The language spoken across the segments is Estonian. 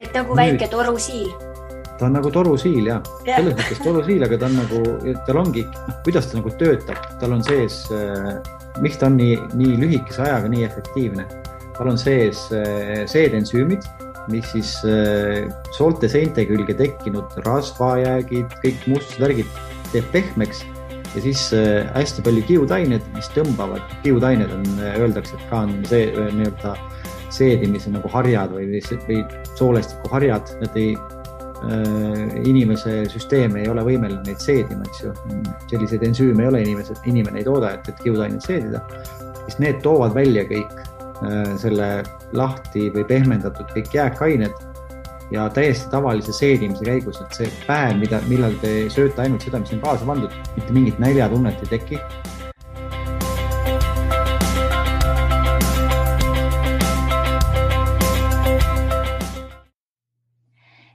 Et nagu Nüüd, väike torusiil. ta on nagu torusiil, jah. Selles mõttes torusiil, aga ta on nagu, tal ongi, kuidas ta nagu töötab. Tal on sees, miks ta on nii lühikese ajaga nii efektiivne. Tal on sees seedensüümid, mis siis soolte seinte külge tekkinud rasvajäägid, kõik mustused värgid teeb pehmeks ja siis hästi palju kiudained, mis tõmbavad. Kiudained on, öeldakse, et ka on see nii-öelda seedimise nagu harjad või soolestiku harjad, nad inimese süsteem ei ole võimeline neid seedima, eks ju. Selliseid ensüüme ei ole inimene ei tooda, et kiudained seedida. Siis need toovad välja kõik selle lahti või pehmendatud kõik jääkained ja täiesti tavalise seedimise käigus, et see päev, millal te sööte ainult seda, mis on kaasa pandud, mitte mingit näljatunnet ei teki.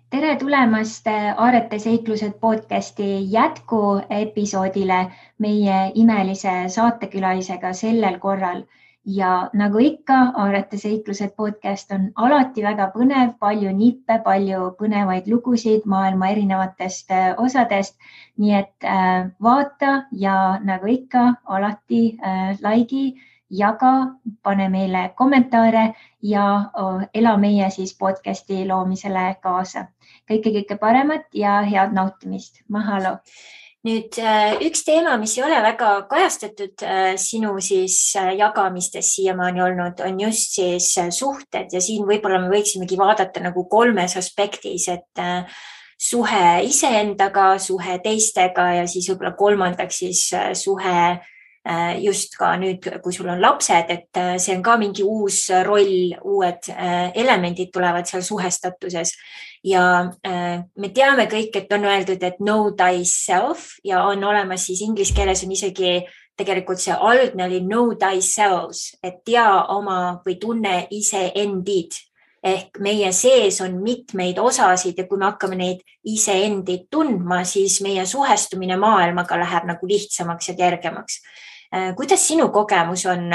Tere tulemast Aarete seiklused podcasti jätku episoodile meie imelise saatekülalisega sellel korral. Ja nagu ikka, Aarete seiklused podcast on alati väga põnev, palju nippe, palju põnevaid lugusid maailma erinevatest osadest. Nii et vaata ja nagu ikka, alati laigi, jaga, pane meile kommentaare ja ela meie siis podcasti loomisele kaasa. Kõike paremat ja head nautimist. Mahalo! Nüüd üks teema, mis ei ole väga kajastatud sinu siis jagamistes siiamaani olnud, on just siis suhted ja siin võib-olla me võiksimegi vaadata nagu kolmes aspektis, et suhe iseendaga, suhe teistega ja siis võib-olla kolmandaks siis suhe just ka nüüd, kui sul on lapsed, et see on ka mingi uus roll, uued elemendid tulevad seal suhestatuses. Ja me teame kõik, et on öeldud, et know thyself ja on olemas siis inglise keeles on isegi tegelikult see algne oli know thyself, et tea oma või tunne iseendid. Ehk meie sees on mitmeid osasid ja kui me hakkame neid iseendid tundma, siis meie suhestumine maailmaga läheb nagu lihtsamaks ja kergemaks. Kuidas sinu kogemus on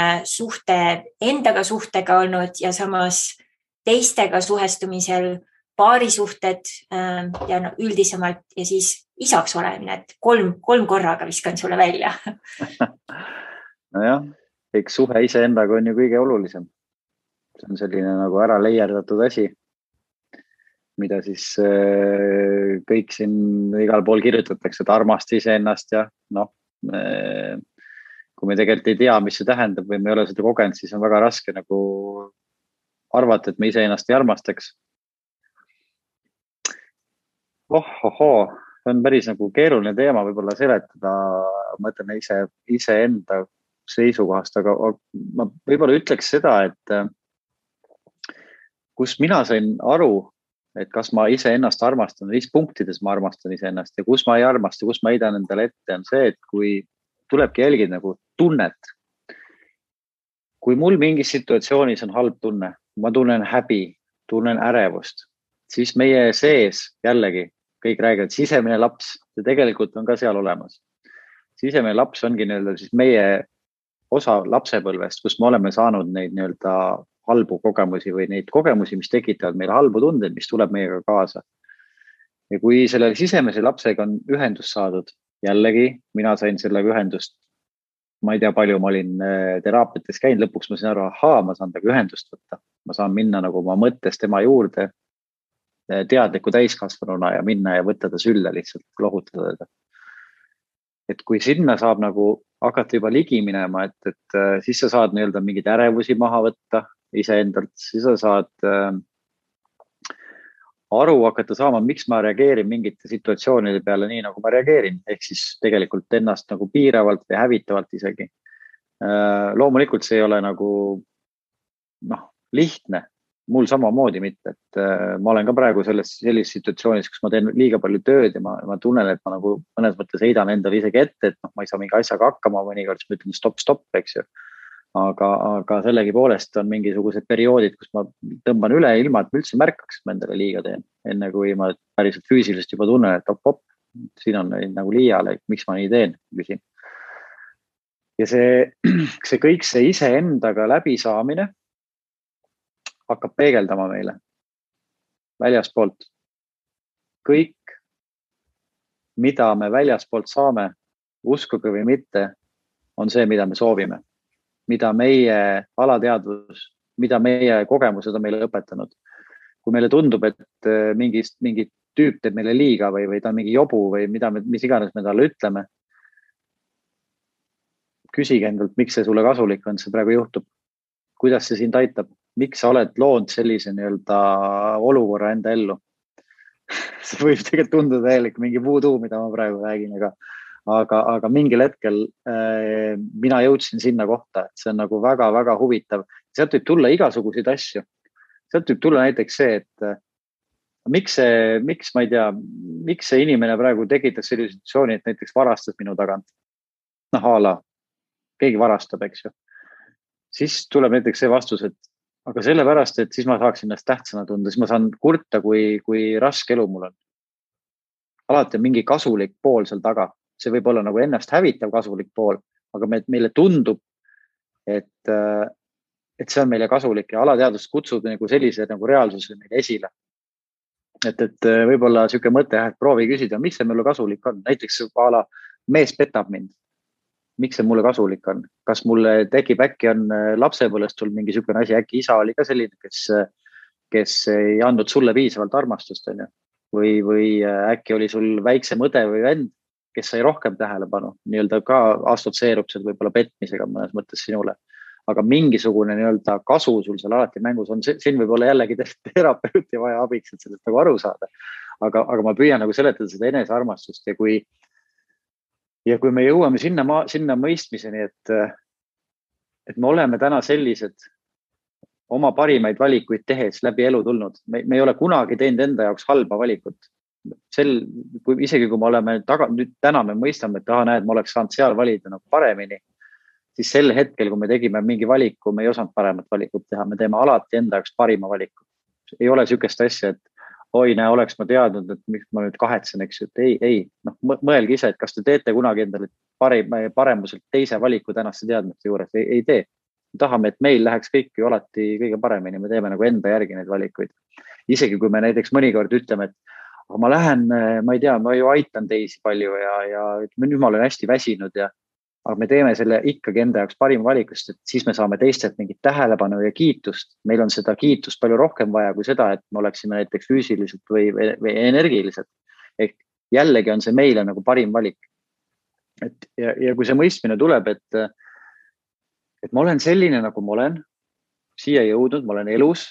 endaga suhtega olnud ja samas teistega suhestumisel paarisuhted ja üldisemalt ja siis isaks olemine, et kolm korraga viskan sulle välja. Nojah, eks suhe iseendaga on ju kõige olulisem. See on selline nagu ära leierdatud asi, mida siis kõik siin igal pool kirjutatakse, et armasta iseennast ja kui me tegelikult ei tea, mis see tähendab või me ei ole seda kogenud, siis on väga raske nagu arvata, et me iseennast ei armastaks. See on päris nagu keeruline teema võib-olla seletada, ma ütlen iseenda seisukohast, aga ma võib-olla ütleks seda, et kus mina sain aru, et kas ma iseennast armastan, mis punktides ma armastan iseennast ja kus ma ei armasta, kus ma heidan endale ette, on see, et kui tulebki jälgida nagu tunnet. Kui mul mingis situatsioonis on halb tunne, ma tunnen häbi, tunnen ärevust, siis meie sees jällegi kõik räägivad sisemine laps ja tegelikult on ka seal olemas. Sisemine laps ongi nii-öelda siis meie osa lapsepõlvest, kus me oleme saanud neid nii-öelda halbu kogemusi või neid kogemusi, mis tekitavad meile halbu tundeid, mis tuleb meiega kaasa. Ja kui selle sisemise lapsega on ühendus saadud, jällegi mina sain sellega ühendust, ma ei tea palju, ma olin teraapiates käinud, lõpuks ma sain aru, ma saan temaga ühendust võtta. Ma saan minna nagu oma mõttes tema juurde teadliku täiskasvanuna ja minna ja võtta ta sülle lihtsalt, lohutada teda. Et kui sinna saab nagu hakata juba ligi minema, et siis sa saad nii-öelda mingid ärevusi maha võtta iseendalt, siis sa saad aru hakata saama, miks ma reageerin mingite situatsioonide peale nii, nagu ma reageerin, ehk siis tegelikult ennast nagu piiravalt või hävitavalt isegi. Loomulikult see ei ole nagu lihtne, mul samamoodi mitte, et ma olen ka praegu sellises situatsioonis, kus ma teen liiga palju tööd ja ma tunnen, et ma nagu mõnes mõttes heidan endale isegi ette, et ma ei saa mingi asjaga hakkama, mõnikord ma ütlen stop, eks ju. Aga sellegi poolest on mingisugused perioodid, kus ma tõmban üle ilma, et ma üldse märkaks, et ma endale liiga teen. Enne kui ma päriselt füüsiliselt juba tunnen, et op, siin on nagu liiale, miks ma nii teen, küsin. Ja see kõik see iseendaga läbi saamine hakkab peegeldama meile. väljaspoolt. Kõik, mida me väljaspoolt saame, uskuge või mitte, on see, mida me soovime. Mida meie alateadvus, mida meie kogemused on meile õpetanud. Kui meile tundub, et mingi tüüp teeb meile liiga või ta on mingi jobu või mis iganes me talle ütleme, küsige endalt, miks see sulle kasulik on, see praegu juhtub. Kuidas see sind aitab? Miks sa oled loonud sellise nii-öelda olukorra enda ellu? See võib tegelikult tunduda täielik mingi voodoo, mida ma praegu räägin, aga mingil hetkel mina jõudsin sinna kohta, et see on nagu väga-väga huvitav. Sealt võib tulla igasuguseid asju. Sealt võib tulla näiteks see, et miks ma ei tea, miks see inimene praegu tekitas sellise situatsiooni, et näiteks varastas minu tagant. Ala, keegi varastab, eks ju. Siis tuleb näiteks see vastus, et aga sellepärast, et siis ma saaksin ennast tähtsana tunda, siis ma saan kurta, kui raske elu mul on. Alati on mingi kasulik pool seal taga. See võib olla nagu ennast hävitav kasulik pool, aga meile tundub, et see on meile kasulik ja alateadvus kutsub nagu sellise nagu reaalsuse meile esile. Et võib-olla siuke mõte, et proovi küsida, miks see mulle kasulik on. Näiteks mees petab mind. Miks see mulle kasulik on? Kas mulle tekib äkki on lapsepõlvest sul mingi siukene asi, äkki isa oli ka selline, kes ei andnud sulle piisavalt armastust, on ju? Või äkki oli sul väiksem õde või vend, kes sai rohkem tähelepanu, nii-öelda ka assotsieerub seal võib-olla petmisega mõnes mõttes sinule. Aga mingisugune nii-öelda kasu sul seal alati mängus on, siin võib olla jällegi terapeuti vaja abiks, et sellest nagu aru saada. Aga ma püüan nagu seletada seda enesearmastust ja kui me jõuame sinna mõistmiseni, et me oleme täna sellised oma parimaid valikuid tehes läbi elu tulnud. Me ei ole kunagi teinud enda jaoks halba valikut. Isegi kui me oleme täna me mõistame, et näed, ma oleks saanud seal valida nagu paremini, siis sel hetkel, kui me tegime mingi valiku, me ei osanud paremat valikut teha. Me teeme alati enda jaoks parima valiku. Ei ole sükest asja, et oleks ma teadnud, et miks ma nüüd kahetsen, eks ju, et ei. Mõelge ise, et kas te teete kunagi endale paremuselt teise valiku tänaste teadmiste juures, ei tee. Me tahame, et meil läheks kõik ju alati kõige paremini, me teeme nagu enda järgi neid valikuid. Isegi kui me näiteks mõnikord ütleme, et ma lähen, ma ei tea, ma ju aitan teisi palju ja nüüd ma olen hästi väsinud aga me teeme selle ikkagi enda jaoks parima valikust, et siis me saame teistelt mingit tähelepanu ja kiitust. Meil on seda kiitust palju rohkem vaja kui seda, et me oleksime näiteks füüsiliselt või energiliselt. Ehk jällegi on see meile nagu parim valik. Ja kui see mõistmine tuleb, et ma olen selline, nagu ma olen, siia jõudnud, ma olen elus,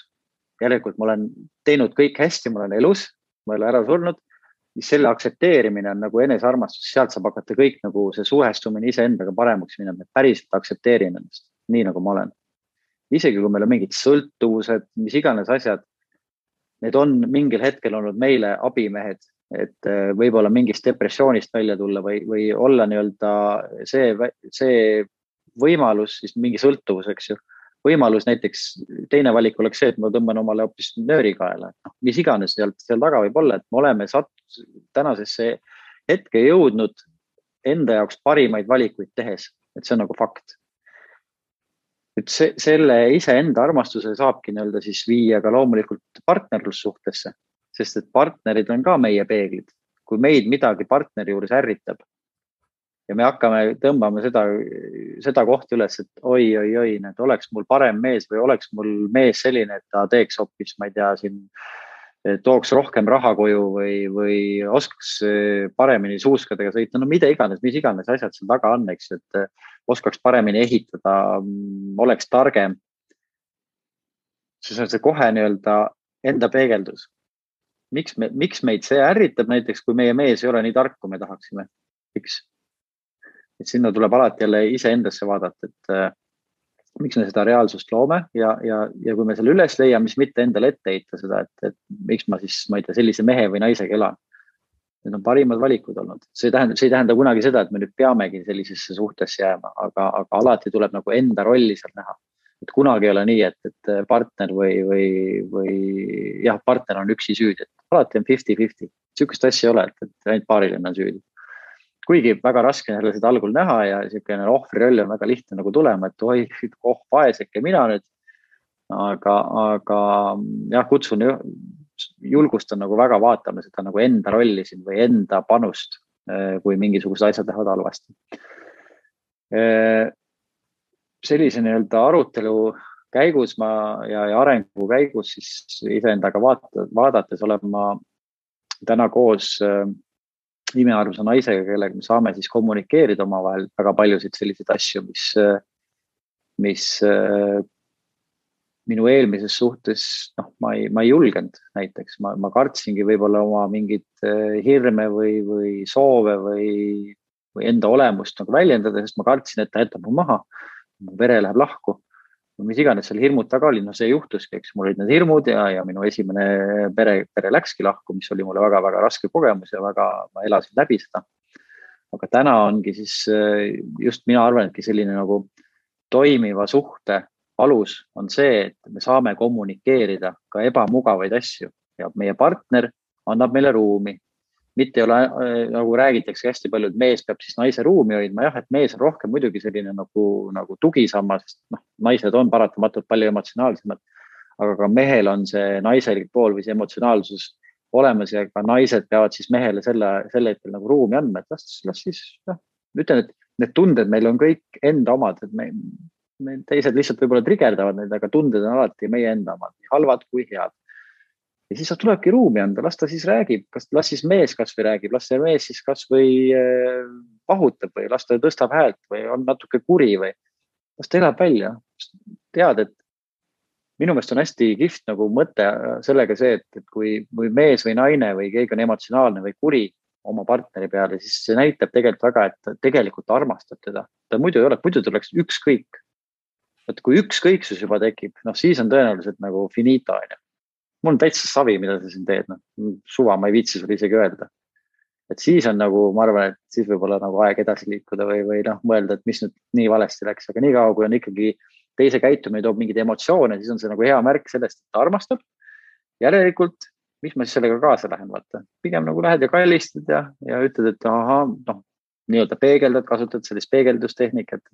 järelikult ma olen teinud kõik hästi, ma olen elus, ma ei ole ära surnud, siis selle aktsepteerimine on nagu enesearmastus, sealt saab hakata kõik nagu see suhestumine iseendaga paremaks minema, et päriselt aktsepteerin ennast, nii nagu ma olen. Isegi kui meil on mingid sõltuvused, mis iganes asjad, need on mingil hetkel olnud meile abimehed, et võib-olla mingist depressioonist välja tulla või olla nii-öelda see võimalus, siis mingi sõltuvus, eks ju. Võimalus näiteks, teine valik oleks see, et ma tõmban omale hoopis nööri kaela. Mis iganes seal taga võib olla, et me oleme tänasesse hetke jõudnud enda jaoks parimaid valikuid tehes, et see on nagu fakt. Et selle iseenda armastuse saabki nii-öelda siis viia ka loomulikult partnerlussuhtesse, sest et partnerid on ka meie peeglid. Kui meid midagi partneri juures ärritab ja me hakkame tõmbama seda kohta üles, et oi, et oleks mul parem mees või oleks mul mees selline, et ta teeks hoopis, ma ei tea, tooks rohkem raha koju või oskaks paremini suuskadega sõita, no mida iganes, mis iganes asjad seal taga on, eks, et oskaks paremini ehitada, oleks targem. Siis on see kohe nii-öelda enda peegeldus. Miks meid see ärritab näiteks, kui meie mees ei ole nii tark, kui me tahaksime? Miks? Et sinna tuleb alati jälle iseendasse vaadata, et miks me seda reaalsust loome ja kui me selle üles leiame, siis mitte endale ette heita seda, et miks ma siis, ma ei tea, sellise mehe või naisega elan. Need on parimad valikud olnud. See ei tähenda kunagi seda, et me nüüd peamegi sellisesse suhtesse jääma, aga alati tuleb nagu enda rolli seal näha. Et kunagi ei ole nii, et partner või partner on üksi süüdi. Et alati on 50-50. Sükest asja ei ole, et ainult paariline on süüdi. Kuigi väga raske on seda algul näha ja selline ohvriroll on väga lihtne nagu tulema, et vaeseke mina nüüd. Aga kutsun julgustan nagu väga vaatama seda nagu enda rolli siin või enda panust, kui mingisugused asjad lähevad halvasti. Sellise nii-öelda arutelu käigus ja arengu käigus siis iseendaga vaadates olen ma täna koos imearmsa naisega, kellega me saame siis kommunikeerida omavahel väga paljusid selliseid asju, mis minu eelmises suhtes, ma ei julgenud näiteks, ma kartsingi võib-olla oma mingit hirme või soove või enda olemust nagu väljendada, sest ma kartsin, et ta jätab mu maha, mu vere läheb lahku. Mis iganes seal hirmud taga oli, see juhtuski, eks mul olid need hirmud ja minu esimene pere läkski lahku, mis oli mulle väga-väga raske kogemus ja ma elasin läbi seda. Aga täna ongi siis just mina arvan, etki selline nagu toimiva suhte alus on see, et me saame kommunikeerida ka ebamugavaid asju ja meie partner annab meile ruumi. Mitte ei ole, nagu räägitakse hästi palju, et mees peab siis naise ruumi hoidma. Jah, et mees on rohkem muidugi selline nagu tugisammas, sest naised on paratamatult palju emotsionaalsemad, aga ka mehel on see naiselik pool või see emotsionaalsus olemas ja ka naised peavad siis mehele selle hetkel nagu ruumi andma, et las siis, ütlen, et need tunded meil on kõik enda omad, et me teised lihtsalt võib-olla trigerdavad neid, aga tunded on alati meie enda omad, nii halvad kui head. Ja siis tulebki ruumi anda, las ta siis räägib, las siis mees kas või räägib, las see mees siis kas või pahutab või las ta tõstab häält või on natuke kuri või las ta elab välja. Tead, et minu meelest on hästi kihvt nagu mõte sellega see, et kui mees või naine või keegi on emotsionaalne või kuri oma partneri peale, siis see näitab tegelikult väga, et ta tegelikult armastab teda. Ta muidu ei ole, muidu tuleks ükskõik. Et kui ükskõiksus juba tekib, siis on tõenäoliselt nagu finito. Mul on täitsa savi, mida sa siin teed. Suva, ma ei viitsi sulle isegi öelda. Et siis on nagu, ma arvan, et siis võib-olla nagu aeg edasi liikuda või mõelda, et mis nüüd nii valesti läks. Aga nii kaua, kui on ikkagi teise käitumine toob mingid emotsioone, siis on see nagu hea märk sellest, et ta armastab. Järelikult, mis ma siis sellega kaasa lähen, vaata. Pigem nagu lähed ja kallistad ja ütled, et nii-öelda peegeldad, kasutad sellist peegeldustehnikat,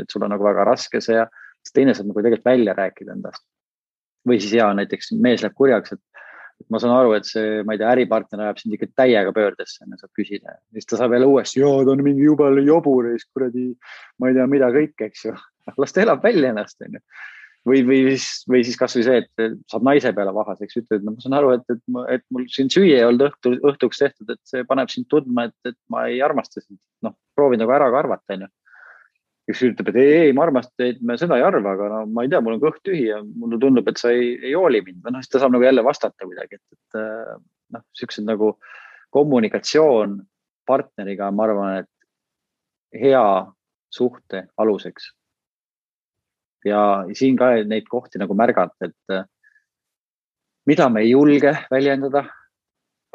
et sul on nagu väga raske see ja teine saab nagu tegelikult välja rääkida endast. Või siis näiteks mees läheb kurjaks, et ma saan aru, et see, ma ei tea, äripartner ajab sind ikka täiega pöördesse, saab küsida. Siis ta saab jälle uuesti, ta on mingi jubel jobur, kuradi, ma ei tea, mida kõik, eks ju. Las ta elab välja ennast. Või siis kas või see, et saab naise peale vahaseks, ütled, ma saan aru, et mul siin süüa ei olnud õhtuks tehtud, et see paneb sind tundma, et ma ei armasta sind. Proovin nagu ära ka arvata, kes ütleb, et ei, ma armastan, et me seda ei arva, aga ma ei tea, mul on kõht tühi ja mulle tundub, et sa ei hooli mind. Siis ta saab nagu jälle vastata kuidagi, et sellised nagu kommunikatsioon partneriga, ma arvan, et hea suhte aluseks. Ja siin ka neid kohti nagu märgata, et mida me ei julge väljendada.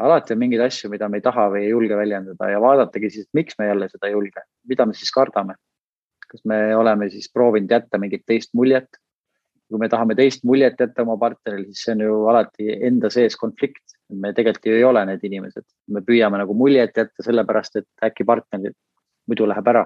Alati on mingeid asju, mida me ei taha või ei julge väljendada ja vaadatagi siis, miks me jälle seda ei julge, mida me siis kardame. Kas me oleme siis proovinud jätta mingit teist muljet. Kui me tahame teist muljet jätta oma partneril, siis see on ju alati enda sees konflikt. Me tegelikult ju ei ole need inimesed. Me püüame nagu muljet jätta sellepärast, et äkki partner muidu läheb ära.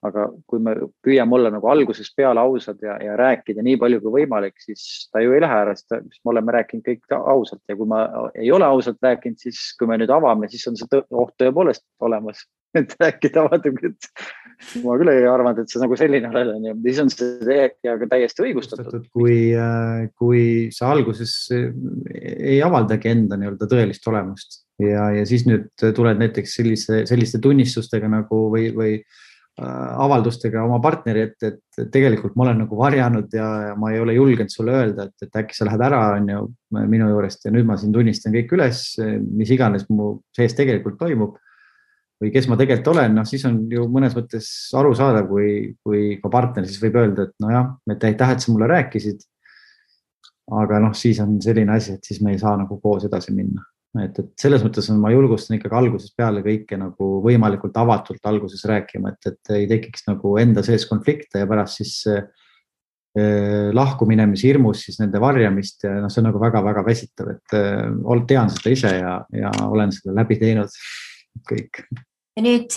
Aga kui me püüame olla nagu alguses peale ausad ja rääkida nii palju kui võimalik, siis ta ju ei lähe ära, sest me oleme rääkinud kõik ausalt. Ja kui ma ei ole ausalt rääkinud, siis kui me nüüd avame, siis on see oht tõepoolest olemas. Et rääkida vaatab, et ma küll ei arvanud, et see nagu selline olen ja siis on see täiesti õigustatud. Kui sa alguses ei avaldagi enda nii-öelda tõelist olemust ja siis nüüd tuled näiteks selliste tunnistustega nagu või avaldustega oma partneri, et tegelikult ma olen nagu varjanud ja ma ei ole julgenud sulle öelda, et äkki sa lähed ära minu juurest ja nüüd ma siin tunnistan kõik üles, mis iganes mu sees tegelikult toimub või kes ma tegelikult olen, siis on ju mõnes mõttes aru saada, kui ka partner siis võib öelda, et nojah, et aitäh, et sa mulle rääkisid, aga siis on selline asi, et siis me ei saa nagu koos edasi minna. Et selles mõttes ma julgustan ikkagi alguses peale kõike nagu võimalikult avatult alguses rääkima, et ei tekiks nagu enda sees konflikte ja pärast siis lahkuminemise hirmus siis nende varjamist ja see on nagu väga-väga väsitav, et tean seda ise ja olen seda läbi teinud kõik. Ja nüüd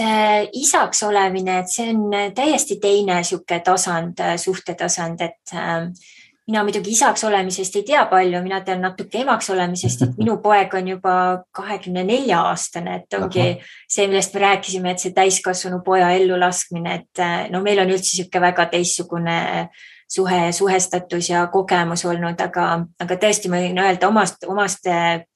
isaks olemine, et see on täiesti teine suhtetasand, et mina muidugi isaks olemisest ei tea palju, mina tean natuke emaks olemisest, et minu poeg on juba 24-aastane, et ongi see, millest me rääkisime, et see täiskasvanu poja ellu laskmine, et no meil on üldse sihuke väga teistsugune suhestatus ja kogemus olnud, aga tõesti ma võin öelda omast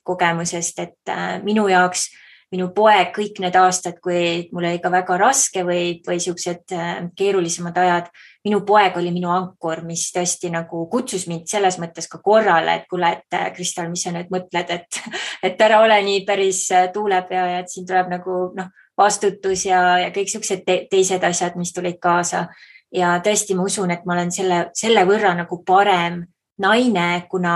kogemusest, et minu jaoks minu poeg kõik need aastad, kui mul oli ka väga raske või siuksed keerulisemad ajad, minu poeg oli minu ankur, mis tõesti nagu kutsus mind selles mõttes ka korrale, et kuule, et Kristal, mis sa nüüd mõtled, et ära ole nii päris tuulepea ja et siin tuleb nagu vastutus ja kõik siuksed teised asjad, mis tulid kaasa. Ja tõesti ma usun, et ma olen selle võrra nagu parem naine, kuna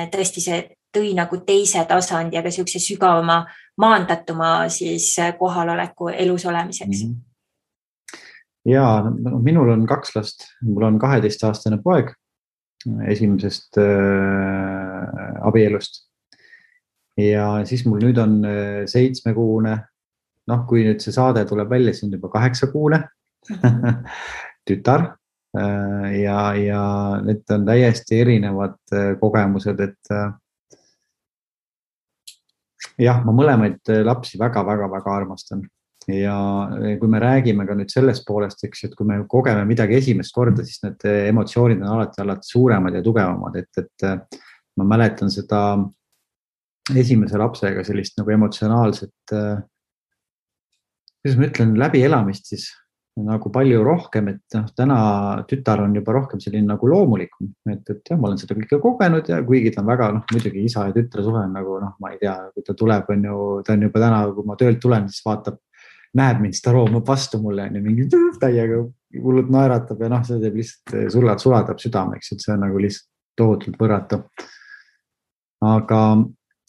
tõesti see tõi nagu teise tasandi, aga siukse sügavama maandatuma siis kohaloleku elus olemiseks. Ja minul on 2 last, mul on 12-aastane poeg esimesest abielust ja siis mul nüüd on 7-kuune, kui nüüd see saade tuleb välja, siis on juba 8-kuune tütar ja need on täiesti erinevad kogemused, et jah, ma mõlemaid lapsi väga-väga-väga armastan ja kui me räägime ka nüüd sellest poolest, eks, et kui me kogeme midagi esimest korda, siis need emotsioonid on alati suuremad ja tugevamad, et ma mäletan seda esimese lapsega sellist nagu emotsionaalset, kuidas ma ütlen, läbielamist siis nagu palju rohkem, et täna tütar on juba rohkem selline nagu loomulikum, et jah, ma olen seda kõike kogenud ja kuigi ta on väga, muidugi isa ja tütre suhe on nagu, ma ei tea, kui ta tuleb, ta on juba täna, kui ma töölt tulen, siis vaatab, näeb mind, siis ta roomab vastu mulle ja mingi täiega hullult naeratab ja see teeb lihtsalt sulatab südameks, et see on nagu lihtsalt tohutult võrratu. Aga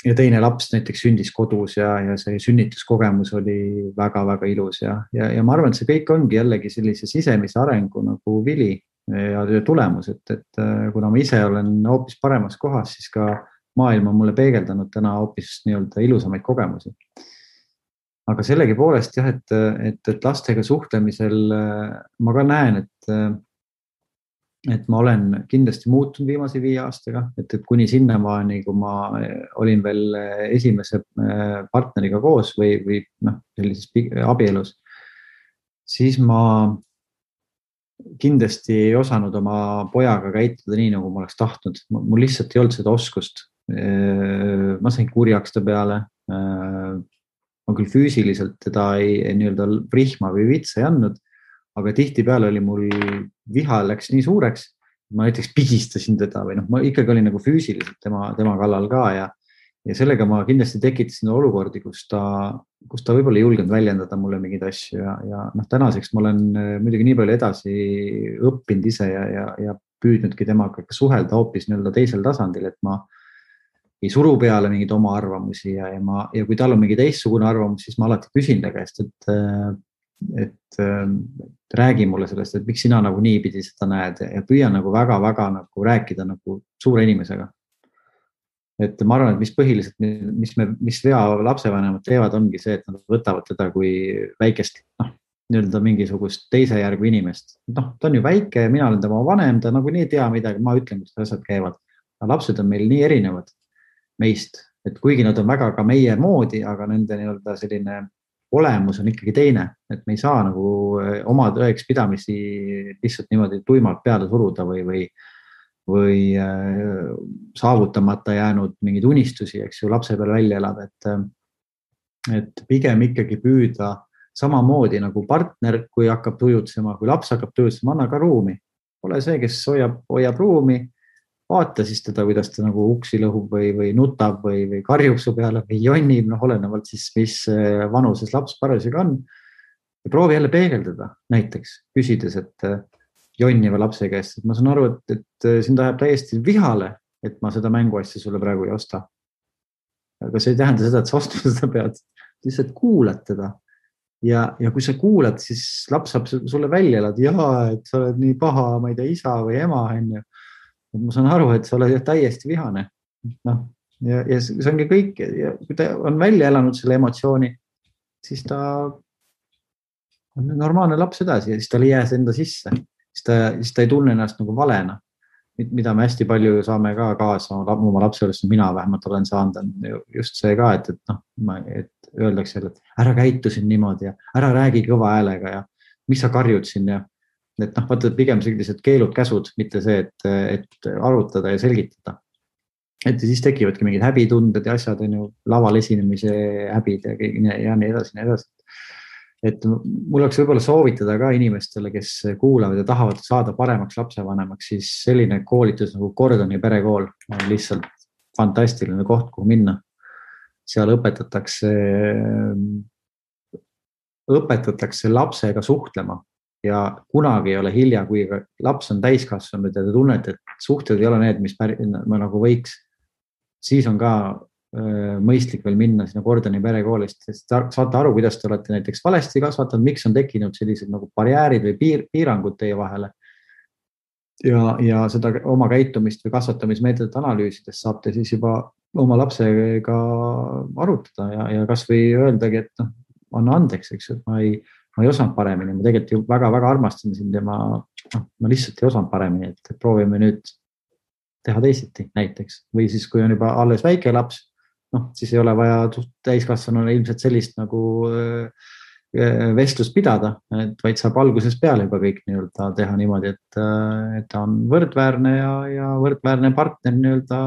ja teine laps näiteks sündis kodus ja see sünnituskogemus oli väga-väga ilus ja ma arvan, et see kõik ongi jällegi sellise sisemise arengu nagu vili ja tulemus, et kuna ma ise olen hoopis paremas kohas, siis ka maailm on mulle peegeldanud täna hoopis nii-öelda ilusamaid kogemusi. Aga sellegi poolest jah, et lastega suhtlemisel ma ka näen, et ma olen kindlasti muutunud viimase 5 aastaga, et kuni sinnamaani, kui ma olin veel esimese partneriga koos või sellises abielus, siis ma kindlasti ei osanud oma pojaga käituda nii, nagu ma oleks tahtnud. Mul lihtsalt ei olnud seda oskust. Ma sain kurjaks ta peale. Ma küll füüsiliselt teda ei nii-öelda rihma või vitsa ei andnud, aga tihtipeale oli mul viha läks nii suureks, ma näiteks pigistasin teda või ma ikkagi olin nagu füüsiliselt tema kallal ka ja sellega ma kindlasti tekitasin olukordi, kus ta võib-olla ei julgenud väljendada mulle mingeid asju ja tänaseks ma olen muidugi nii palju edasi õppinud ise ja püüdnudki temaga suhelda hoopis nii-öelda teisel tasandil, et ma ei suru peale mingeid oma arvamusi ja kui tal on mingi teistsugune arvamus, siis ma alati küsin ta käest, et räägi mulle sellest, et miks sina nagu niipidi seda näed ja püüan nagu väga-väga nagu rääkida nagu suure inimesega. Et ma arvan, et mis põhiliselt, mis vea lapsevanemad teevad, ongi see, et nad võtavad teda kui väikest, nii-öelda mingisugust teise järgu inimest. Ta on ju väike, mina olen tema vanem, ta nagu nii ei tea midagi, ma ütlen, kuidas asjad käivad. Aga lapsed on meil nii erinevad meist, et kuigi nad on väga ka meie moodi, aga nende nii-öelda selline olemus on ikkagi teine, et me ei saa nagu oma tõeks pidamisi lihtsalt niimoodi tuimalt peale suruda või saavutamata jäänud mingeid unistusi, eks ju, lapse peal välja elab, et pigem ikkagi püüda samamoodi nagu partner, kui hakkab tujutsema, kui laps hakkab tujutsema, anna ka ruumi. Ole see, kes hoiab ruumi, vaata siis teda, kuidas ta nagu uksi lõhub või nutab või karjub su peale või jonnib, olenevalt siis, mis vanuses laps parasjagu on. Ja proovi jälle peegeldada näiteks, küsides, et jonniva lapse käest, et ma saan aru, et sind ajab täiesti vihale, et ma seda mänguasja sulle praegu ei osta. Aga see ei tähenda seda, et sa ostma seda pead, lihtsalt kuulad teda. Ja kui sa kuulad, siis laps saab sulle välja elada, et sa oled nii paha, ma ei tea, isa või ema, on ju. Ma saan aru, et sa oled täiesti vihane. Ja see ongi kõik. Ja kui ta on välja elanud selle emotsiooni, siis ta on normaalne laps edasi ja siis ta ei jää enda sisse. Siis ta ei tunne ennast nagu valena. mida me hästi palju saame ka kaasa oma lapse juures, mina vähemalt olen saanud, on just see ka, et et öeldakse, et ära käitu siin niimoodi ja ära räägi kõva häälega ja mis sa karjud siin ja et vaata pigem sellised keelud, käsud, mitte see, et arutada ja selgitada. Et siis tekivadki mingid häbitunded ja asjad, on ju, laval esinemise häbid ja nii edasi. Et mul oleks võib-olla soovitada ka inimestele, kes kuulavad ja tahavad saada paremaks lapsevanemaks, siis selline koolitus nagu Gordoni perekool on lihtsalt fantastiline koht, kuhu minna. Seal õpetatakse lapsega suhtlema ja kunagi ei ole hilja, kui laps on täiskasvanud ja te tunnete, et suhted ei ole need, mis nagu võiks, siis on ka mõistlik veel minna sinna Gordoni perekoolist, sest saate aru, kuidas te olete näiteks valesti kasvatanud, miks on tekkinud sellised nagu barjäärid või piirangud teie vahele. Ja seda oma käitumist või kasvatamismeetodit analüüsides saate siis juba oma lapsega arutada ja kas või öeldagi, et anna andeks, eks, et ma ei osanud paremini, ma tegelikult ju väga-väga armastan sind ja ma lihtsalt ei osanud paremini, et proovime nüüd teha teisiti näiteks. Või siis, kui on juba alles väike laps, siis ei ole vaja täiskasvanule ilmselt sellist nagu vestlust pidada, vaid saab alguses peale juba kõik nii-öelda teha niimoodi, et ta on võrdväärne ja võrdväärne partner nii-öelda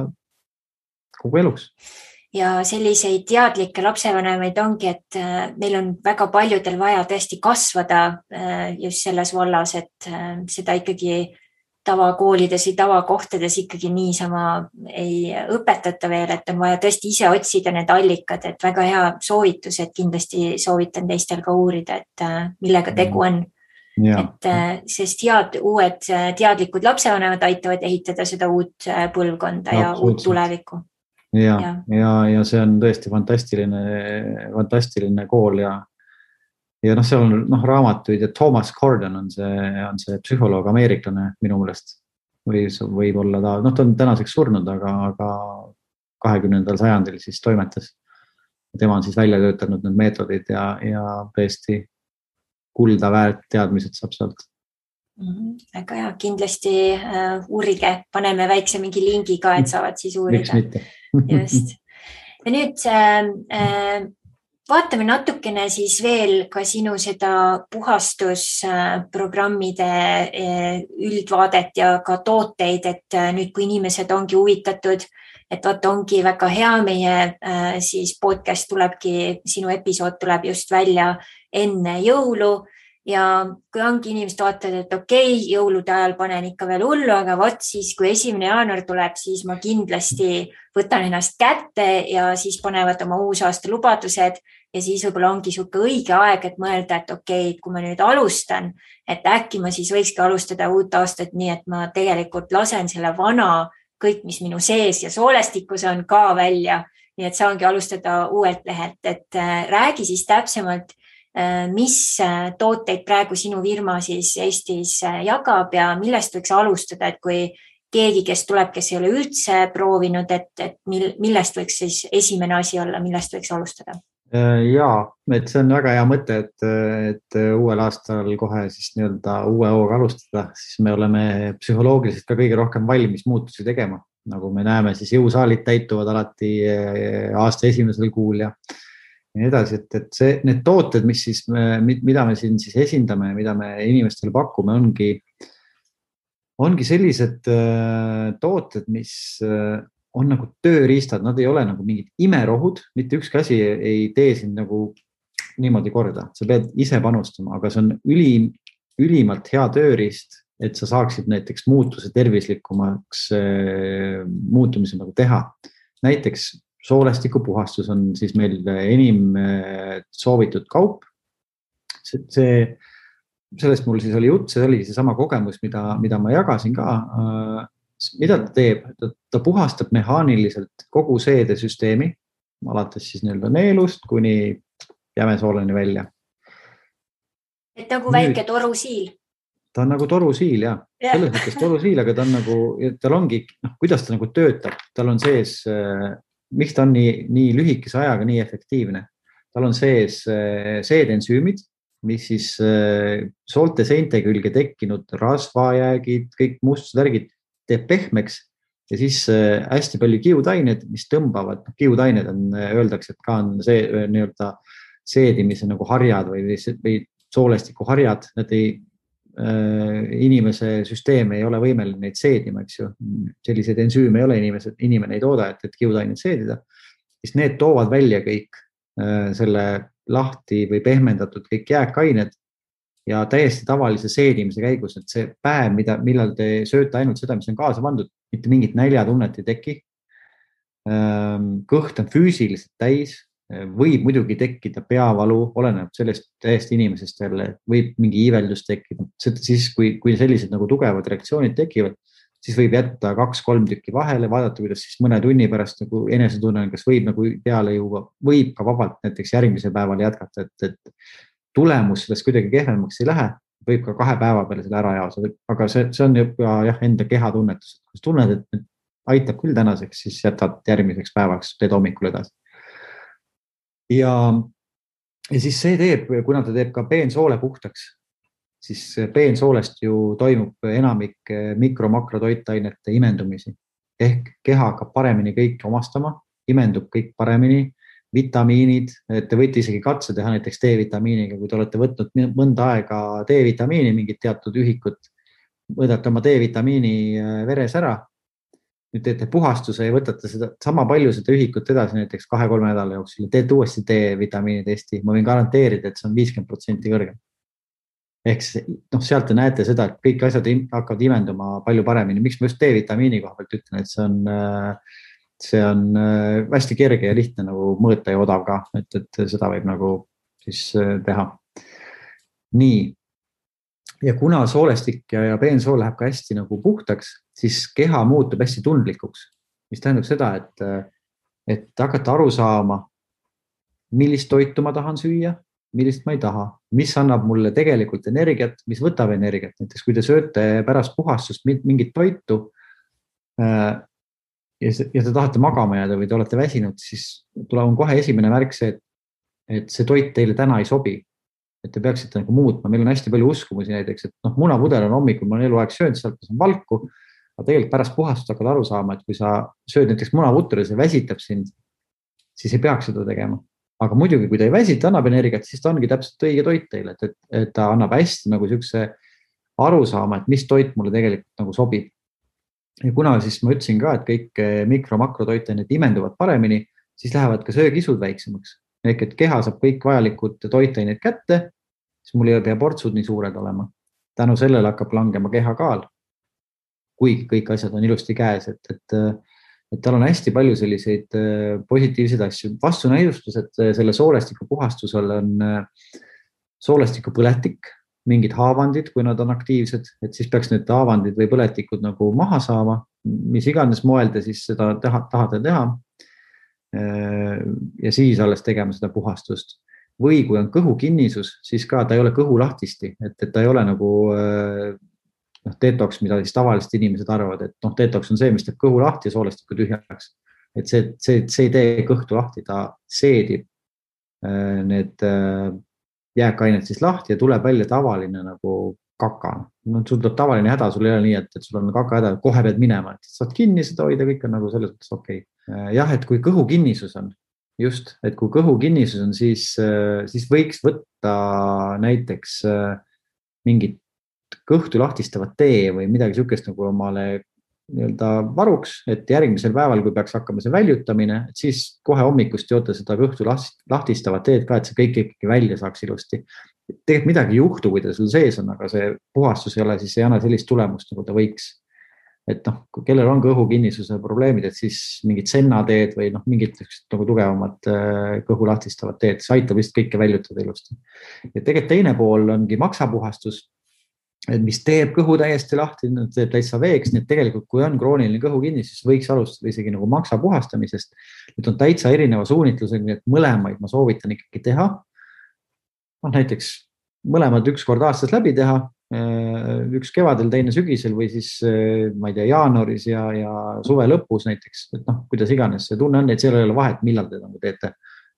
kogu eluks. Ja selliseid teadlikke lapsevanemaid ongi, et meil on väga paljudel vaja tõesti kasvada just selles vallas, et seda ikkagi tavakoolides või tavakohtades ikkagi niisama ei õpetata veel, et on vaja tõesti ise otsida need allikad, et väga hea soovitus, et kindlasti soovitan teistel ka uurida, et millega tegu on. Ja. Et sest uued teadlikud lapsevanemad aitavad ehitada seda uut põlvkonda ja uut tulevikku. Ja see on tõesti fantastiline kool ja seal on raamatuid ja Thomas Gordon on see psühholoog, ameeriklane minu meelest või võib-olla ta on tänaseks surnud, aga 20. sajandil siis toimetas. Tema on siis välja töötanud need meetodid ja tõesti kulda väärt teadmised saab sealt. Väga hea, kindlasti uurige, paneme väikse mingi lingi ka, et saavad siis uurida. Miks mitte? Just. Ja nüüd vaatame natukene siis veel ka sinu seda puhastusprogrammide üldvaadet ja ka tooteid, et nüüd kui inimesed ongi huvitatud, et vaata ongi väga hea, meie siis podcast tulebki, sinu episood tuleb just välja enne jõulu ja kui ongi inimesed vaatavad, et okei, jõulude ajal panen ikka veel hullu, aga vot siis, kui 1. jaanuar tuleb, siis ma kindlasti võtan ennast kätte ja siis panevad oma uusaasta lubadused ja siis võib-olla ongi sihuke õige aeg, et mõelda, et okei, kui ma nüüd alustan, et äkki ma siis võikski alustada uut aastat nii, et ma tegelikult lasen selle vana kõik, mis minu sees ja soolestikus on ka välja, nii et saangi alustada uuelt lehelt, et räägi siis täpsemalt, mis tooteid praegu sinu firma siis Eestis jagab ja millest võiks alustada, et kui keegi, kes tuleb, kes ei ole üldse proovinud, et millest võiks siis esimene asi olla, millest võiks alustada? Jaa, et see on väga hea mõte, et uuel aastal kohe siis nii-öelda uue hooga alustada, siis me oleme psühholoogiliselt ka kõige rohkem valmis muutusi tegema. Nagu me näeme, siis jõusaalid täituvad alati aasta esimesel kuul ja nii edasi, et need tooted, mida me siin siis esindame ja mida me inimestele pakume, ongi sellised tooted, mis on nagu tööriistad, nad ei ole nagu mingid imerohud, mitte ükski asi ei tee sind nagu niimoodi korda, sa pead ise panustama, aga see on ülimalt hea tööriist, et sa saaksid näiteks muutuse tervislikumaks muutumise nagu teha. Näiteks soolestikupuhastus on siis meil enim soovitud kaup. Sellest mul siis oli jutt, see oli seesama kogemus, mida ma jagasin ka. Mida ta teeb? Ta puhastab mehaaniliselt kogu seedesüsteemi, alates siis nii-öelda neelust kuni jämesooleni välja. Et nagu väike torusiil. Ta on nagu torusiil, jah. Selles mõttes torusiil, aga tal ongi, kuidas ta nagu töötab. Tal on sees, miks ta on nii lühikese ajaga nii efektiivne. Tal on sees seedensüümid, mis siis soolte seinte külge tekkinud rasvajäägid, kõik mustusvärgid teeb pehmeks ja siis hästi palju kiudained, mis tõmbavad, kiudained on, öeldakse, et ka on see nii-öelda seedimise nagu harjad või soolestiku harjad, nad inimese süsteem ei ole võimeline neid seedima, eks ju. Selliseid ensüüme ei ole inimene ei tooda, et kiudainet seedida. Siis need toovad välja kõik selle lahti või pehmendatud kõik jääkained ja täiesti tavalise seedimise käigus, et see päev, millal te sööte ainult seda, mis on kaasa pandud, mitte mingit näljatunnet ei teki. Kõht on füüsiliselt täis, võib muidugi tekkida peavalu, oleneb sellest täiesti inimesest jälle, võib mingi iiveldus tekkida. Siis, kui sellised nagu tugevad reaktsioonid tekivad, siis võib jätta 2-3 tükki vahele, vaadata, kuidas siis mõne tunni pärast nagu enesetunne, kas võib nagu peale juua, võib ka vabalt näiteks järgmise päeval jätkata, et tulemus sellest kuidagi kehvemaks ei lähe, võib ka 2 päeva peale selle ära jaosa, aga see on juba enda kehatunnetus. Kui tunned, et aitab küll tänaseks, siis jätad järgmiseks päevaks, teed hommikul edasi. Ja siis see teeb, kuna ta teeb ka peensoole puhtaks, siis peensoolest ju toimub enamik mikro-makrotoitainete imendumisi. Ehk keha hakkab paremini kõik omastama, imendub kõik paremini, vitamiinid, te võite isegi katse teha näiteks D-vitamiiniga, kui te olete võtnud mõnda aega D-vitamiini, mingit teatud ühikut, võtate oma D-vitamiini veres ära, nüüd teete puhastuse ja võtate seda sama palju seda ühikut edasi näiteks 2-3 nädala jooksul ja teete uuesti D-vitamiini testi. Ma võin garanteerida, et see on 50% kõrgem. Ehk sealt te näete seda, et kõik asjad hakkavad imenduma palju paremini. Miks ma just D-vitamiini koha pealt ütlen, et see on hästi kerge ja lihtne nagu mõõta ja odav ka, et seda võib nagu siis teha. Nii. Ja kuna soolestik ja peensool läheb ka hästi nagu puhtaks, siis keha muutub hästi tundlikuks, mis tähendab seda, et hakata aru saama, millist toitu ma tahan süüa, millist ma ei taha, mis annab mulle tegelikult energiat, mis võtab energiat. Näiteks kui te sööte pärast puhastust mingit toitu ja te tahate magama jääda või te olete väsinud, siis tuleb kohe esimene märk see, et see toit teile täna ei sobi. Et te peaksite nagu muutma. Meil on hästi palju uskumusi näiteks, et munapudel on hommikul, ma olen eluaeg söönud, sealt on valku, aga tegelikult pärast puhastust hakkad aru saama, et kui sa sööd näiteks munaputru ja see väsitab sind, siis ei peaks seda tegema. Aga muidugi, kui ta ei väsita, annab energiat, siis ta ongi täpselt õige toit teile, et ta annab hästi nagu siukse aru saama, et mis toit mulle tegelikult nagu sobib. Ja kuna siis ma ütlesin ka, et kõik mikro-makrotoitained imenduvad paremini, siis lähevad ka söögisud väiksemaks. Ehk et keha saab kõik vajalikud toitained kätte, siis mul ei pea portsud nii suured olema. Tänu sellele hakkab langema keha kaal, kuigi kõik asjad on ilusti käes, et tal on hästi palju selliseid positiivseid asju. Vastunäidustused selle soolestiku puhastusel on soolestiku põletik, mingid haavandid, kui nad on aktiivsed, et siis peaks need haavandid või põletikud nagu maha saama, mis iganes moel te siis seda tahate teha. Ja siis alles tegema seda puhastust. Või kui on kõhukinnisus, siis ka ta ei ole kõhu lahtisti, et ta ei ole nagu detoks, mida siis tavaliselt inimesed arvavad, et detoks on see, mis teeb kõhu lahti ja soolestiku tühjaks. Et see ei tee kõhtu lahti, ta seedib need jääkained siis lahti ja tuleb välja tavaline nagu kaka. Sul tuleb tavaline häda, sul ei ole nii, et sul on kaka häda, kohe pead minema, et saad kinni seda hoida, kõik on nagu selles mõttes okei. Jah, et kui kõhukinnisus on, just, et kui kõhukinnisus on, siis võiks võtta näiteks mingit kõhtu lahtistavat tee või midagi sükest nagu omale varuks, et järgmisel päeval, kui peaks hakkama see väljutamine, et siis kohe hommikust joote seda kõhtu lahtistavat teed ka, et see kõik ikkagi välja saaks ilusti. Tegelikult midagi ei juhtu, kui ta sul sees on, aga see puhastus ei ole, siis ei anna sellist tulemust, nagu ta võiks. Et kellel on kõhukinnisuse probleemid, et siis mingid sennateed või mingid nagu tugevamad kõhu lahtistavad teed, see aitab vist kõike väljutada ilusti. Ja tegelikult teine pool ongi maksapuhastus, mis teeb kõhu täiesti lahti, teeb täitsa veeks, nii et tegelikult kui on krooniline kõhukinnisus, võiks alustada isegi nagu maksa puhastamisest. Nüüd on täitsa erineva suunitlusega, nii et mõlemaid ma soovitan ikkagi teha. Näiteks mõlemad 1 kord aastas läbi teha, üks kevadel, teine sügisel või siis, ma ei tea, jaanuaris ja suve lõpus näiteks, et kuidas iganes see tunne on, et seal ei ole vahet, millal te nagu teete.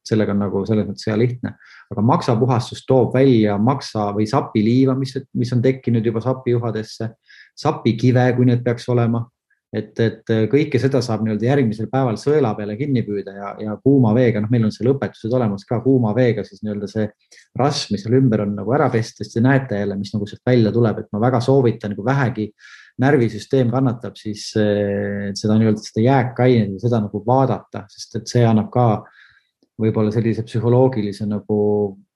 Sellega on nagu selles mõttes hea lihtne. Aga maksapuhastus toob välja maksa või sapiliiva, mis on tekkinud juba sapijuhadesse, sapikive, kui need peaks olema. et kõike seda saab nii-öelda järgmisel päeval sõela peale kinni püüda ja kuuma veega, meil on seal õpetused olemas ka kuuma veega, siis nii-öelda see rasv, mis seal ümber on nagu ära pesta, siis te näete jälle, mis nagu sealt välja tuleb, et ma väga soovitan, kui vähegi närvisüsteem kannatab, siis seda nii-öelda seda jääkainet ja seda nagu vaadata, sest et see annab ka võib-olla sellise psühholoogilise nagu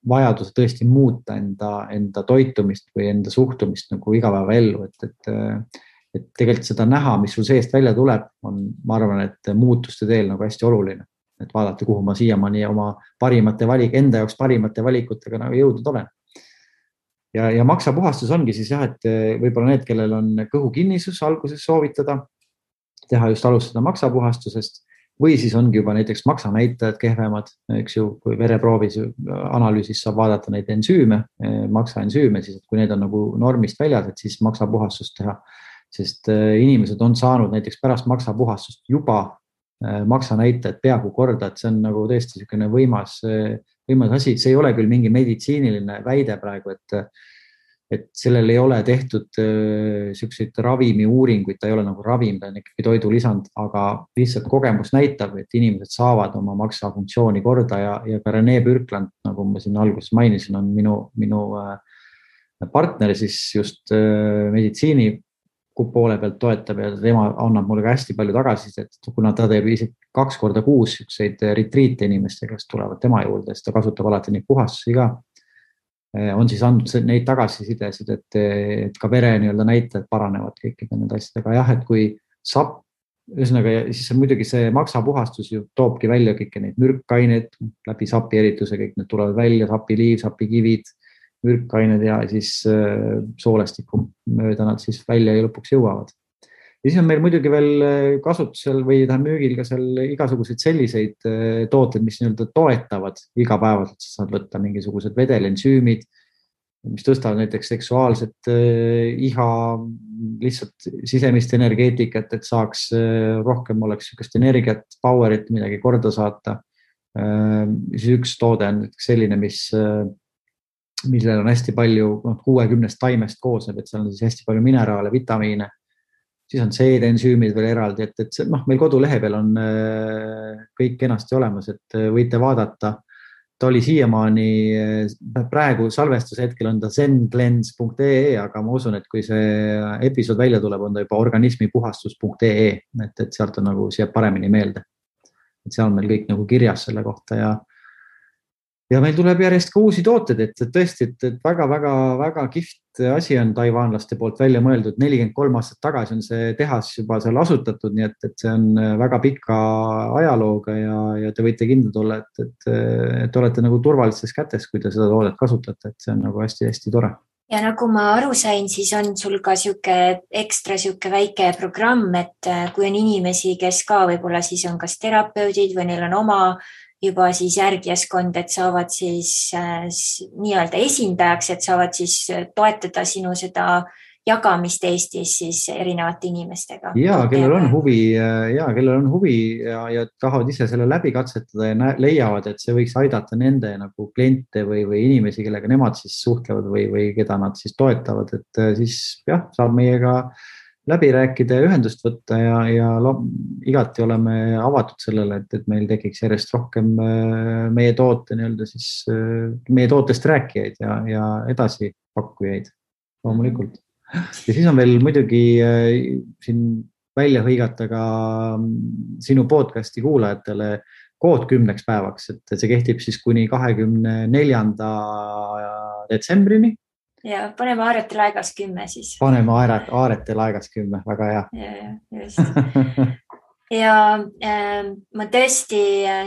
vajaduse tõesti muuta enda toitumist või enda suhtumist nagu igapäevaellu, et tegelikult seda näha, mis sul seest välja tuleb, on, ma arvan, et muutuste teel nagu hästi oluline, et vaadata, kuhu ma siiamaani oma enda jaoks parimate valikutega nagu jõudnud olen. Ja maksapuhastus ongi siis jah, et võib-olla need, kellel on kõhukinnisus alguses soovitada, teha just alustada maksapuhastusest või siis ongi juba näiteks maksanäitajad kehvemad, eks ju, kui vereproovis analüüsis saab vaadata neid ensüüme, maksaensüüme, siis et kui need on nagu normist väljas, et siis maksapuhastust teha, sest inimesed on saanud näiteks pärast maksapuhastust juba maksanäitajad peaaegu korda, et see on nagu tõesti niisugune võimas asi, see ei ole küll mingi meditsiiniline väide praegu, et sellel ei ole tehtud selliseid ravimiuuringuid, ta ei ole nagu ravim, ta on ikkagi toidulisand, aga lihtsalt kogemus näitab, et inimesed saavad oma maksafunktsiooni korda ja ka Rene Bürkland, nagu ma siin alguses mainisin, on minu partner siis just meditsiini poole pealt toetab ja tema annab mulle ka hästi palju tagasisidet, kuna ta teeb isegi 2 korda kuus retriite inimestega, kes tulevad tema juurde, siis ta kasutab alati neid puhastusi ka. On siis andnud neid tagasisidesid, et ka vere nii-öelda näitajad paranevad kõikide nende asjadega. Jah, et kui sapp, ühesõnaga, siis muidugi see maksapuhastus ju toobki välja kõiki neid mürkaineid läbi sapi erituse, kõik need tulevad välja, sapiliiv, sapikivid, mürkained ja siis soolestiku mööda nad siis välja ja lõpuks jõuavad. Ja siis on meil muidugi veel kasutusel või müügil ka seal igasuguseid selliseid tooted, mis nii-öelda toetavad igapäevaselt, saad võtta mingisugused vedelensüümid, mis tõstavad näiteks seksuaalset iha, lihtsalt sisemist energeetikat, et saaks rohkem oleks niisugust energiat, powerit, midagi korda saata. Siis üks toode on selline, millel on hästi palju 60 taimest koosneb, et seal on siis hästi palju mineraale, vitamiine. Siis on seedensüümid veel eraldi, et meil kodulehe peal on kõik kenasti olemas, et võite vaadata. Ta oli siiamaani, praegu salvestuse hetkel on ta zenglens.ee, aga ma usun, et kui see episood välja tuleb, on ta juba organismipuhastus.ee, et sealt on nagu siia paremini meelde. Et seal on meil kõik nagu kirjas selle kohta ja meil tuleb järjest ka uusi tooted, et tõesti, et väga kihvt asi on taiwanlaste poolt välja mõeldud. 43 aastat tagasi on see tehas juba seal asutatud, nii et see on väga pika ajalooga ja te võite kindlad olla, et olete nagu turvalistes kätes, kui te seda toodet kasutate, et see on nagu hästi-hästi tore. Ja nagu ma aru sain, siis on sul ka ekstra väike programm, et kui on inimesi, kes ka võib-olla siis on kas terapeudid või neil on oma juba siis järgijaskond, et saavad siis nii-öelda esindajaks, et saavad siis toetada sinu seda jagamist Eestis siis erinevate inimestega. Ja, kellel on huvi ja tahavad ise selle läbi katsetada ja leiavad, et see võiks aidata nende nagu kliente või inimesi, kellega nemad siis suhtlevad või keda nad siis toetavad, et siis jah, saab meiega läbi rääkida ja ühendust võtta ja igati oleme avatud sellele, et meil tekiks järjest rohkem meie tootest rääkijaid ja edasi pakkujaid loomulikult. Ja siis on veel muidugi siin välja hõigata ka sinu podcasti kuulajatele kood 10 päevaks, et see kehtib siis kuni 24. detsembrini. Ja paneme Aaretel aegas 10 siis. Paneme Aaretel aegas 10, väga hea. Ja, just. Ja ma tõesti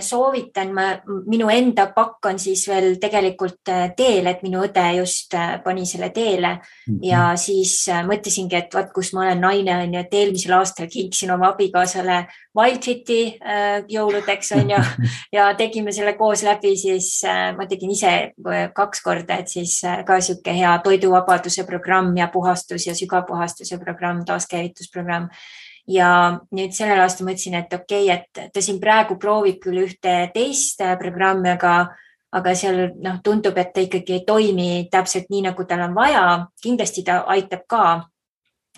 soovitan, minu enda pakk on siis veel tegelikult teel, et minu õde just pani selle teele ja siis mõtlesingi, et vaat kus ma olen naine on ja et eelmisel aastal kinksin oma abikaasale Wildfiti jõuludeks on ja tegime selle koos läbi, siis ma tegin ise 2 korda, et siis ka siuke hea toiduvabaduse programm ja puhastus ja sügavpuhastuse programm, taaskäivitusprogramm. Ja nüüd sellel aastal mõtlesin, et okei, et ta siin praegu proovib küll ühte teist programmi, aga seal tundub, et ta ikkagi ei toimi täpselt nii, nagu tal on vaja. Kindlasti ta aitab ka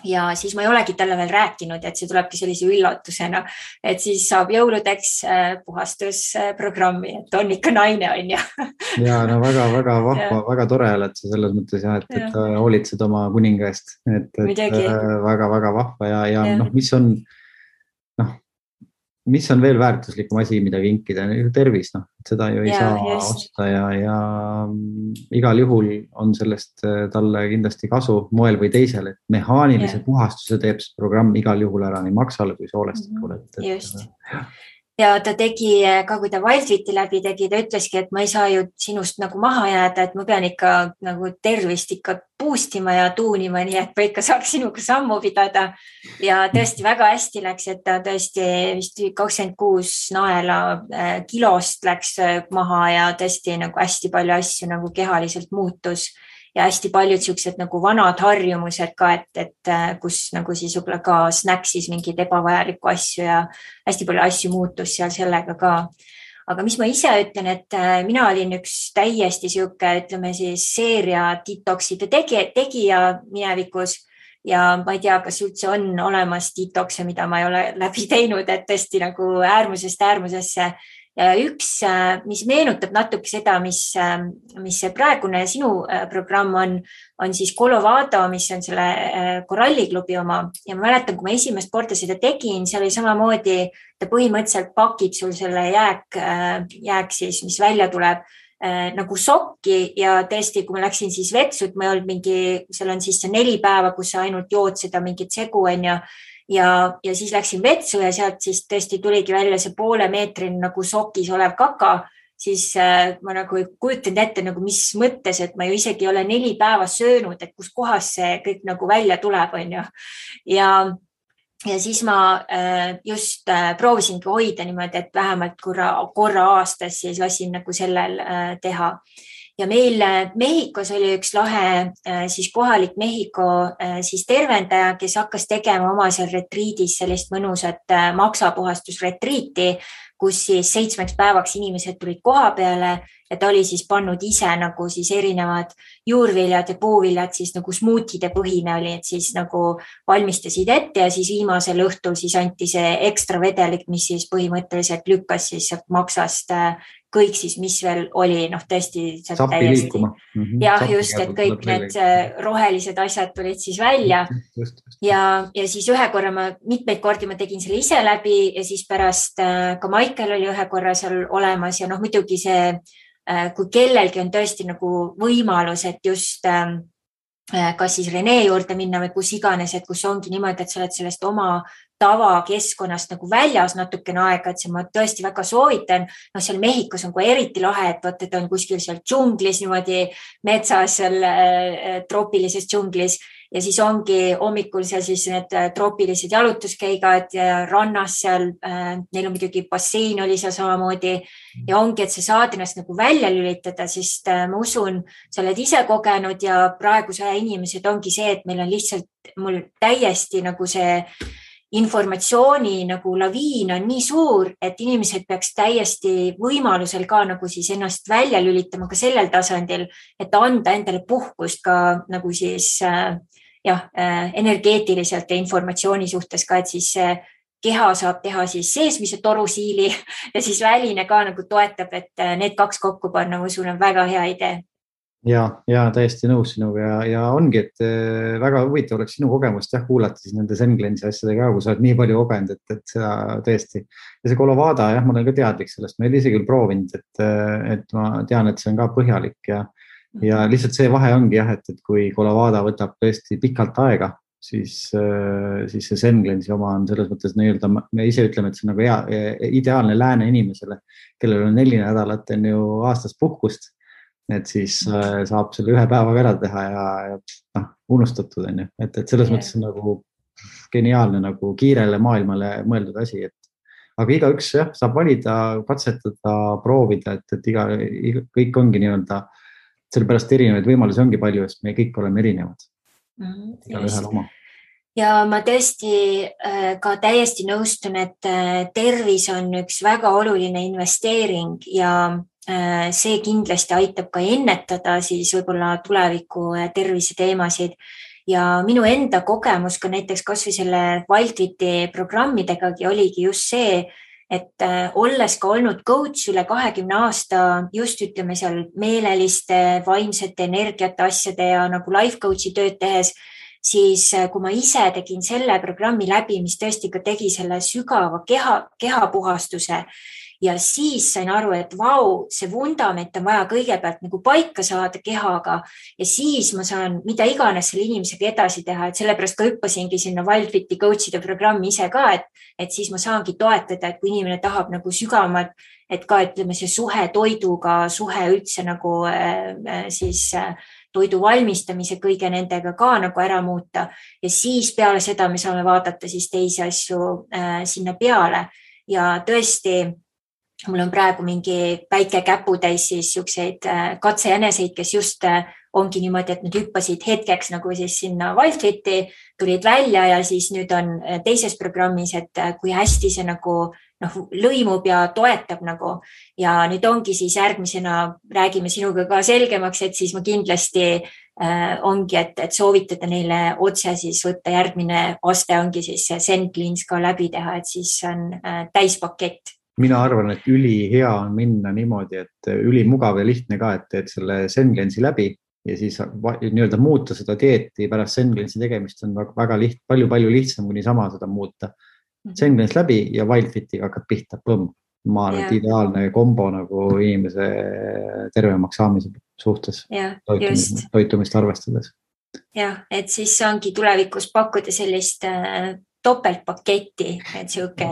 ja siis ma ei olegi talle veel rääkinud, et see tulebki sellise üllatusena, et siis saab jõuludeks puhastusprogrammi, et on ikka naine, on ju. Ja no väga vahva, väga tore oled sa selles mõttes ja, et hoolitsed oma kuninga eest, et väga vahva ja noh, mis on veel väärtuslikum asi, mida kinkida, tervis, noh, seda ju ei saa osta ja igal juhul on sellest talle kindlasti kasu moel või teisel, et mehaanilise puhastuse teeb see programm igal juhul ära nii maksale kui soolestikule. Just. Ja ta tegi ka, kui ta Wildfiti läbi tegi, ta ütleski, et ma ei saa ju sinust nagu maha jääda, et ma pean ikka nagu tervist ikka boostima ja tuunima, nii et ma ikka saaks sinuga sammu pidada. Ja tõesti väga hästi läks, et ta tõesti vist 26 naela kilost läks maha ja tõesti nagu hästi palju asju nagu kehaliselt muutus. Ja hästi paljud siuksed nagu vanad harjumused ka, et kus nagu siis võib-olla ka snäksis mingid ebavajalikku asju ja hästi palju asju muutus seal sellega ka. Aga mis ma ise ütlen, et mina olin üks täiesti siuke, ütleme siis seeria detoxide tegija minevikus ja ma ei tea, kas üldse on olemas detoxe, mida ma ei ole läbi teinud, et tõesti nagu äärmusest äärmusesse. Ja üks, mis meenutab natuke seda, mis see praegune sinu programm on siis Colovado, mis on selle koralliklubi oma. Ja ma mäletan, kui ma esimest korda seda tegin, seal oli samamoodi, ta põhimõtteliselt pakib sul selle jääk siis, mis välja tuleb nagu sokki ja tõesti, kui ma läksin siis vetsud, ma ei olnud seal on siis see 4 päeva, kus sa ainult jood seda mingit segu on ja siis läksin vetsu ja sealt siis tõesti tuligi välja see poole meetrini nagu sokis olev kaka, siis ma nagu ei kujutanud ette nagu mis mõttes, et ma ju isegi ei ole 4 päeva söönud, et kus kohas see kõik nagu välja tuleb, on ju. Ja siis ma just proovisingi hoida niimoodi, et vähemalt korra aastas siis lasin nagu sellel teha. Ja meil Mehhikos oli üks lahe siis kohalik Mehhiko siis tervendaja, kes hakkas tegema oma seal retriidis sellist mõnusat maksapuhastusretriiti, kus siis 7 päevaks inimesed tulid koha peale ja ta oli siis pannud ise nagu siis erinevad juurviljad ja puuviljad siis nagu smuutide põhine oli, et siis nagu valmistasid ette ja siis viimasel õhtul siis anti see ekstra vedelik, mis siis põhimõtteliselt lükkas siis maksast kõik siis, mis veel oli, noh tõesti Sappi liikuma. Jah, just, et kõik need rohelised asjad tulid siis välja ja siis ühe korra mitmeid kordi ma tegin selle ise läbi ja siis pärast ka Michael oli ühe korra seal olemas ja noh, muidugi see, kui kellelgi on tõesti nagu võimalus, et just kas siis Rene juurde minna või kus iganes, et kus ongi niimoodi, et sa oled sellest oma tavakeskkonnast nagu väljas natukene aega, et see ma tõesti väga soovitan. No seal Mehhikos on kui eriti lahe, et on kuskil seal džunglis, niimoodi metsas, seal troopilises džunglis ja siis ongi hommikul seal siis need troopilised jalutuskäigad ja rannas seal, neil on muidugi bassein oli seal samamoodi ja ongi, et sa saad ennast nagu välja lülitada, sest ma usun, sa oled ise kogenud ja praeguse aja inimesed ongi see, et meil on lihtsalt mul täiesti nagu see informatsiooni nagu laviin on nii suur, et inimesed peaks täiesti võimalusel ka nagu siis ennast välja lülitama ka sellel tasandil, et anda endale puhkust ka nagu siis energeetiliselt ja informatsiooni suhtes ka, et siis keha saab teha siis seesmise torusiili ja siis väline ka nagu toetab, et need 2 kokku panna, ma usun, on väga hea idee. Ja täiesti nõus sinuga ja ongi, et väga huvitav oleks sinu kogemust kuulata siis nende Zen Cleanse'i asjadega, kui sa oled nii palju kogenud, et seda tõesti. Ja see Colovado, ma olen ka teadlik sellest, ma ei ole ise küll proovinud, et ma tean, et see on ka põhjalik ja lihtsalt see vahe ongi et kui Colovado võtab tõesti pikalt aega, siis see Zen Cleanse'i oma on selles mõttes nii-öelda, me ise ütleme, et see on nagu ideaalne lääne inimesele, kellel on 4 nädalat on ju aastas puhkust. Et siis saab selle 1 päevaga ära teha ja unustatud on ju, et selles mõttes on nagu geniaalne nagu kiirele maailmale mõeldud asi, aga igaüks saab valida, katsetada, proovida, et kõik ongi nii-öelda, sellepärast erinevaid võimalusi ongi palju, sest me kõik oleme erinevad. Igaühel oma. Ja ma tõesti ka täiesti nõustun, et tervis on üks väga oluline investeering ja see kindlasti aitab ka ennetada siis võib-olla tuleviku tervise teemasid ja minu enda kogemus ka näiteks kas või selle Wildfiti programmidegagi oligi just see, et olles ka olnud coach üle 20 aasta, just ütleme seal meeleliste, vaimsete energiate asjade ja nagu life coach'i tööd tehes, siis kui ma ise tegin selle programmi läbi, mis tõesti ka tegi selle sügava kehapuhastuse ja siis sain aru, et vau, see vundament on vaja kõigepealt nagu paika saada kehaga ja siis ma saan mida iganes selle inimesega edasi teha, et sellepärast ka hüppasingi sinna Wildfiti coach'ide programmi ise ka, et siis ma saangi toetada, et kui inimene tahab nagu sügavamalt, et ka ütleme see suhe toiduga, suhe üldse nagu siis toidu valmistamise kõige nendega ka nagu ära muuta ja siis peale seda me saame vaadata siis teisi asju sinna peale ja tõesti mul on praegu mingi väike käputäis siis siukseid katsejäneseid, kes just ongi niimoodi, et nad hüppasid hetkeks nagu siis sinna Wildfiti, tulid välja ja siis nüüd on teises programmis, et kui hästi see nagu lõimub ja toetab nagu ja nüüd ongi siis järgmisena räägime sinuga ka selgemaks, et siis ma kindlasti ongi, et soovitada neile otse siis võtta järgmine aste ongi siis Zen Cleanse ka läbi teha, et siis on täispakett. Mina arvan, et ülihea on minna niimoodi, et ülimugav ja lihtne ka, et teed selle Zen Cleanse'i läbi ja siis nii-öelda muuta seda dieeti pärast Zen Cleanse'i tegemist on väga palju lihtsam kui niisama seda muuta. Zen Cleanse läbi ja Wildfitiga hakkad pihta, põmm. Ma arvan, et ideaalne kombo nagu inimese tervemaks saamise suhtes toitumist arvestades. Jah, et siis saangi tulevikus pakkuda sellist topeltpaketti, et siuke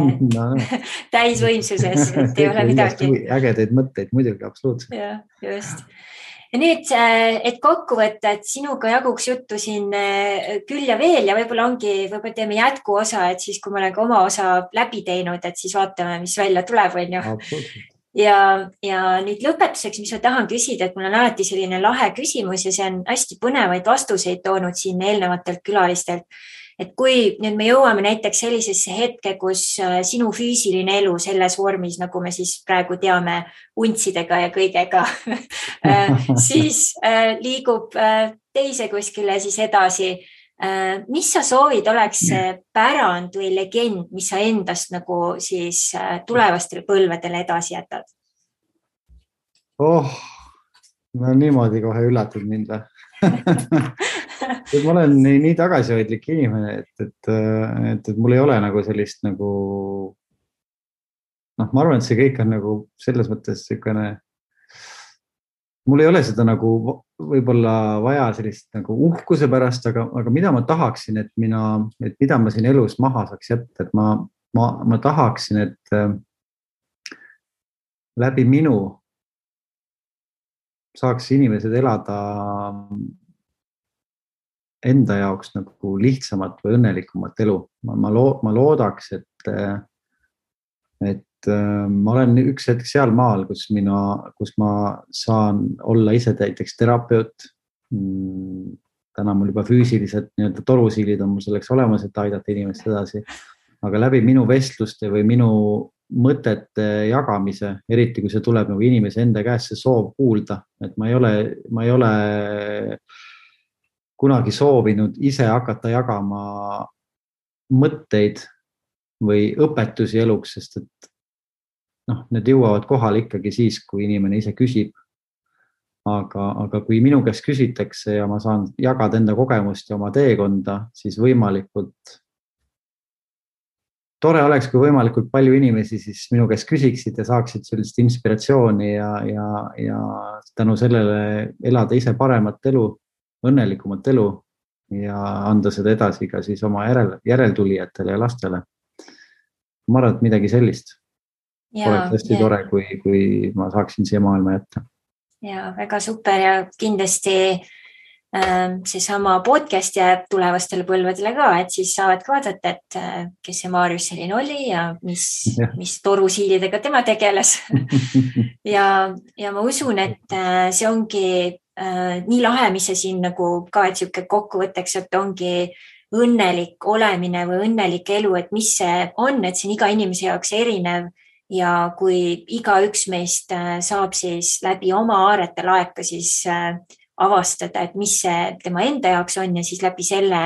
täisvõimsuses, et ei ole midagi. Ägedaid mõtteid muidugi, absoluutselt. Ja, just. Ja nüüd, et kokku võtta, et sinuga jaguks juttu siin küll ja veel ja võib-olla teeme jätkuosa, et siis kui ma olen ka oma osa läbi teinud, et siis vaatame, mis välja tuleb, on ju. Ja nüüd lõpetuseks, mis ma tahan küsida, et mul on alati selline lahe küsimus ja see on hästi põnevaid vastuseid toonud siin eelnevatelt külalistelt. Et kui nüüd me jõuame näiteks sellisesse hetke, kus sinu füüsiline elu selles vormis, nagu me siis praegu teame untsidega ja kõigega, siis liigub teise kuskile siis edasi. Mis sa soovid oleks pärand või legend, mis sa endast nagu siis tulevastele põlvedele edasi jätad? No niimoodi kohe üllatad mind või? Ma olen nii tagasihoidlik inimene, et mul ei ole nagu sellist nagu, ma arvan, et see kõik on nagu selles mõttes selline, mul ei ole seda nagu võib-olla vaja sellist nagu uhkuse pärast, aga mida ma tahaksin, et mida ma siin elus maha saaks jätta, et ma tahaksin, et läbi minu saaks inimesed elada enda jaoks nagu lihtsamat või õnnelikumat elu. Ma loodaks, et ma olen üks hetk seal maal, kus ma saan olla ise näiteks terapeut. Täna mul juba füüsilised nii-öelda torusiilid on mul selleks olemas, et aidata inimest edasi. Aga läbi minu vestluste või minu mõtete jagamise, eriti kui see tuleb nagu inimese enda käest see soov kuulda, et ma ei ole kunagi soovinud ise hakata jagama mõtteid või õpetusi eluks, sest et need jõuavad kohale ikkagi siis, kui inimene ise küsib. Aga kui minu käest küsitakse ja ma saan jagada enda kogemust ja oma teekonda, siis võimalikult tore oleks, kui võimalikult palju inimesi siis minu käest küsiksid ja saaksid sellist inspiratsiooni ja tänu sellele elada ise paremat elu, õnnelikumat elu ja anda seda edasi ka siis oma järeltulijatele ja lastele. Ma arvan, et midagi sellist. Oleks hästi tore, kui ma saaksin siia maailma jätta. Ja väga super ja kindlasti seesama podcast jääb tulevastele põlvedele ka, et siis saavad ka vaadata, et kes see Maarjus selline oli ja mis torusiilidega tema tegeles. ja ma usun, et see ongi nii lahe, mis see siin nagu ka, et siuke kokkuvõtteks, et ongi õnnelik olemine või õnnelik elu, et mis see on, et see on iga inimese jaoks erinev ja kui iga üks meist saab siis läbi oma aarete laeka siis avastada, et mis see tema enda jaoks on ja siis läbi selle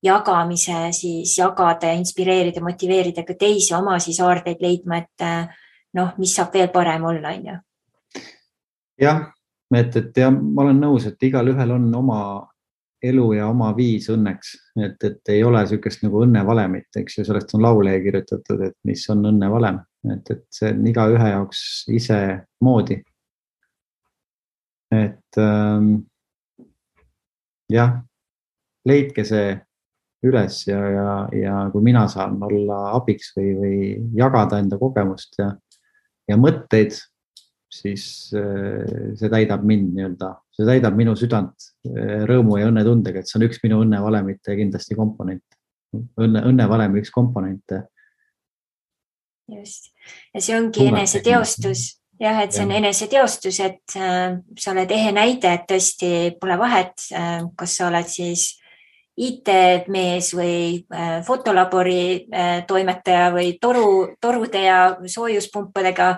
jagamise siis jagada ja inspireerida, motiveerida ka teisi oma siis aardeid leidma, et mis saab veel parem olla, on ju. Jah, et ja ma olen nõus, et igal ühel on oma elu ja oma viis õnneks, et ei ole sükest nagu õnnevalemit, eks ju, sellest on laule kirjutatud, et mis on õnnevalem, et see on iga ühe jaoks ise moodi. Et jah, leidke see üles ja kui mina saan olla abiks või jagada enda kogemust ja mõtteid, siis see täidab mind nii-öelda, see täidab minu südant rõõmu ja õnnetundega, et see on üks minu õnnevalemite kindlasti komponent. Õnnevalemi üks komponente. Just. Ja see ongi eneseteostus. Jah, et see on eneseteostus, et sa oled ehe näide, et tõesti pole vahet, kas sa oled siis IT-mees või fotolabori toimetaja või torude ja soojuspumpadega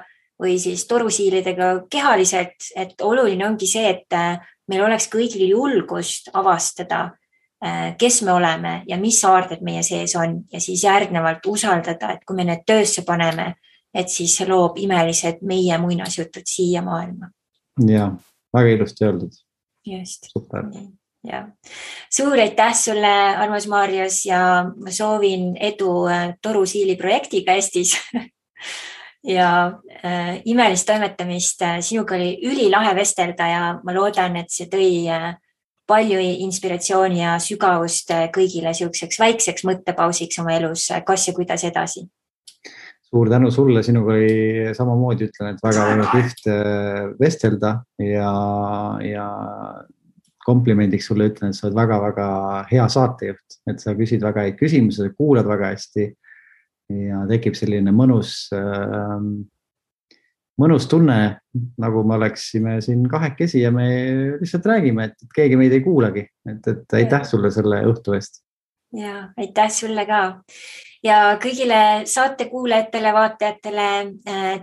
või siis torusiilidega kehaliselt, et oluline ongi see, et meil oleks kõigil julgust avastada, kes me oleme ja mis aarded meie sees on ja siis järgnevalt usaldada, et kui me need töösse paneme, et siis see loob imelised meie muinasjutud siia maailma. Ja, väga ilusti öeldud. Just. Super. Ja. Suur aitäh sulle, armas Marius, ja ma soovin edu torusiili projektiga Eestis. Ja imelist toimetamist. Sinuga oli ülilahe vestelda ja ma loodan, et see tõi palju inspiratsiooni ja sügavust kõigile siukseks väikseks mõttepausiks oma elus, kas ja kuidas edasi. Suur tänu sulle, sinuga oli samamoodi, ütlen, et väga kihvt vestelda ja komplimendiks sulle ütlen, et sa oled väga-väga hea saatejuht, et sa küsid väga häid küsimusi, kuulad väga hästi ja tekib selline mõnus tunne, nagu me oleksime siin kahekesi ja me lihtsalt räägime, et keegi meid ei kuulagi, et aitäh sulle selle õhtu eest. Ja, aitäh sulle ka. Ja kõigile saate kuulajatele, vaatajatele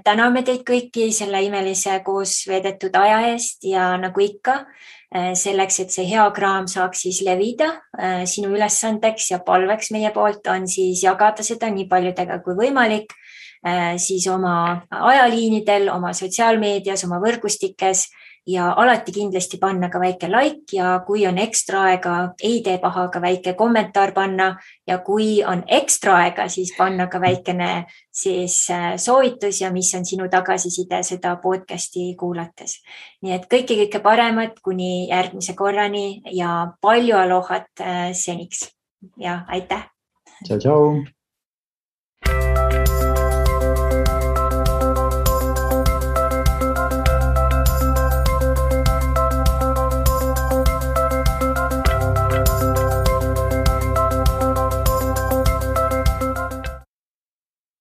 täname teid kõiki selle imelise koos veedetud aja eest ja nagu ikka, selleks, et see hea kraam saaks siis levida, sinu ülesandeks ja palveks meie poolt on siis jagada seda nii paljudega kui võimalik, siis oma ajaliinidel, oma sotsiaalmeedias, oma võrgustikes ja alati kindlasti panna ka väike like ja kui on ekstra aega, ei tee paha ka väike kommentaar panna ja kui on ekstra aega, siis panna ka väikene siis soovitus ja mis on sinu tagasiside seda podcasti kuulates. Nii et kõike paremat kuni järgmise korrani ja palju alohat seniks ja aitäh! Tšau, tšau!